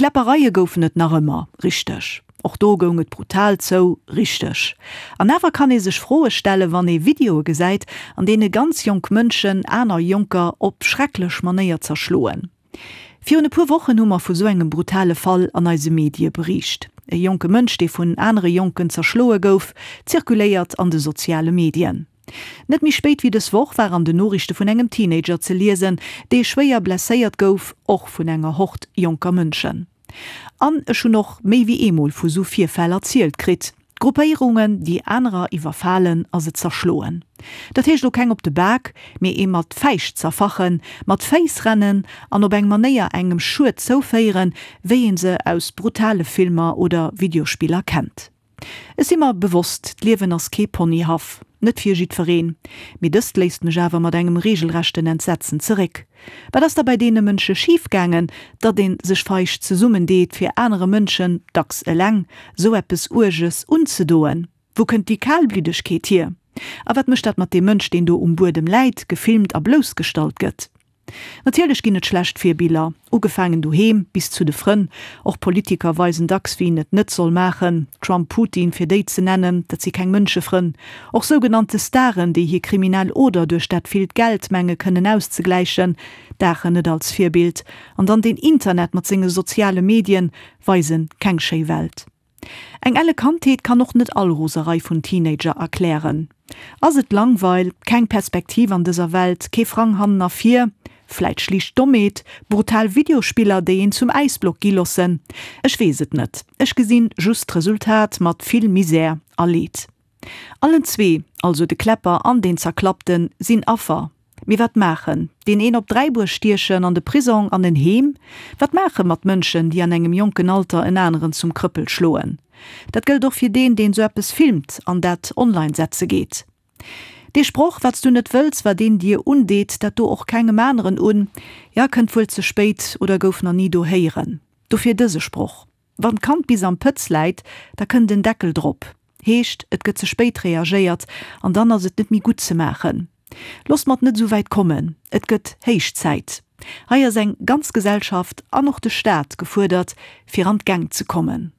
Kläppereie goufen et nach ëmmer, richteg. Och do goung et brutal zou, richteg. An awer kann ee sech Froe stellen, wann ee Videoe gesäit, an deene ganz jonk Mënschen aner Jonker op schrecklech Manéier zerschloen. Virun e puer Wochen hu mer vu sou engem brutale Fall an eise Medie beriicht. E jonke Mënsch, dee vun anere Jonken zerschloe gouf, zirkuléiert an de soziale Medien. Net méi spéit wéi dës Woch war an den Noriichte vun engem Teenager ze liesen, dee schwéier blesséiert gouf, och vun enger Hord jonker Mënschen. An ech hunn och méi wéi eemol vu sou Virfäll erzielt kritt. Gruppéierungen, déi anerer iwwerfalen a se zerschloen. Dat heescht lo keng op de Bak, mee ee mat Fäischt zerfachen, mat Féiss rennen an op eng Manéier engem Schued zouféieren, wéi een se aus brutale Filmer oder Videospiller kennt. Ech si mer bewosst, d'Liewen ass kee Ponyhaff. Net fir jiddwereen. Mee dëst léisst mech awer mat engem regelrechten Entsetzen zeréck. Wat ass da bei deene Mënsche schif gaangen, datt ee sech feig zesummen deet, fir anere Mënschen, dacks eleng, sou eppes Uerges unzedoen? Wou kënnt déi Kalbliddegkeet hier? A wat mécht dat mat deem Mënsch, deen do um Buedem läit, gefilmt a bloussgestallt gëtt? Natierlech ginn et schlecht Virbiller, ugefaangen doheem bis zu de Frënn. Och Politiker weisen dacks wien et net soll maachen, Trump, Putin fir déi ze nennen, dat si keng Mënschefrënn. Och sougenannte Staren, déi hir kriminell Oder duerch dat villt Geld menge kënnen auszegläichen, daachen net als Virbild. An dann den Internet mat senge soziale Medien weisen keng schéi Welt. Eng elle Kandheet kann och net all Roserei vun Teenager erklären. Ass et Langweil, keng Perspektiv an dëser Welt, kee Frang hannen a vir, vläit schlicht Dommheet, brutal Videospiller déi een zum Äisblock gi lossen? Ech weess et net, ech gesinn just d'Resultat mat vill Misär a Leed. Allen zwee, also de Kläpper an deen Zerklappten, sinn Affer. Mee wat maachen? Deen een op Dräibuer stiechen, an de Prisong, an en Heem? Wat maache mat Mënschen, déi an engem jonken Alter en aneren zum Krëppel schloen? Dat gëllt och fir deen, deen sou eppes filmt an dat online setze geet. Dee Sproch, Wat s du net wëlls, wat een dir undeet, dat do och kengem aneren un, ja, kënnt wuel ze spéit oder gouf na ni do héieren. Dofir dëse Sproch. Wann d'Kand bis am Pëtz läit, da kënnt en Deckel drop. Heescht, et gëtt ze spéit reagéiert an dann ass et net méi gutt ze maachen. Loosst mer et net esou wäit kommen. Et gëtt héich Zäit. Hei ass eng ganz Gesellschaft an och de Staat gefuerdert, fir an d'Gäng ze kommen.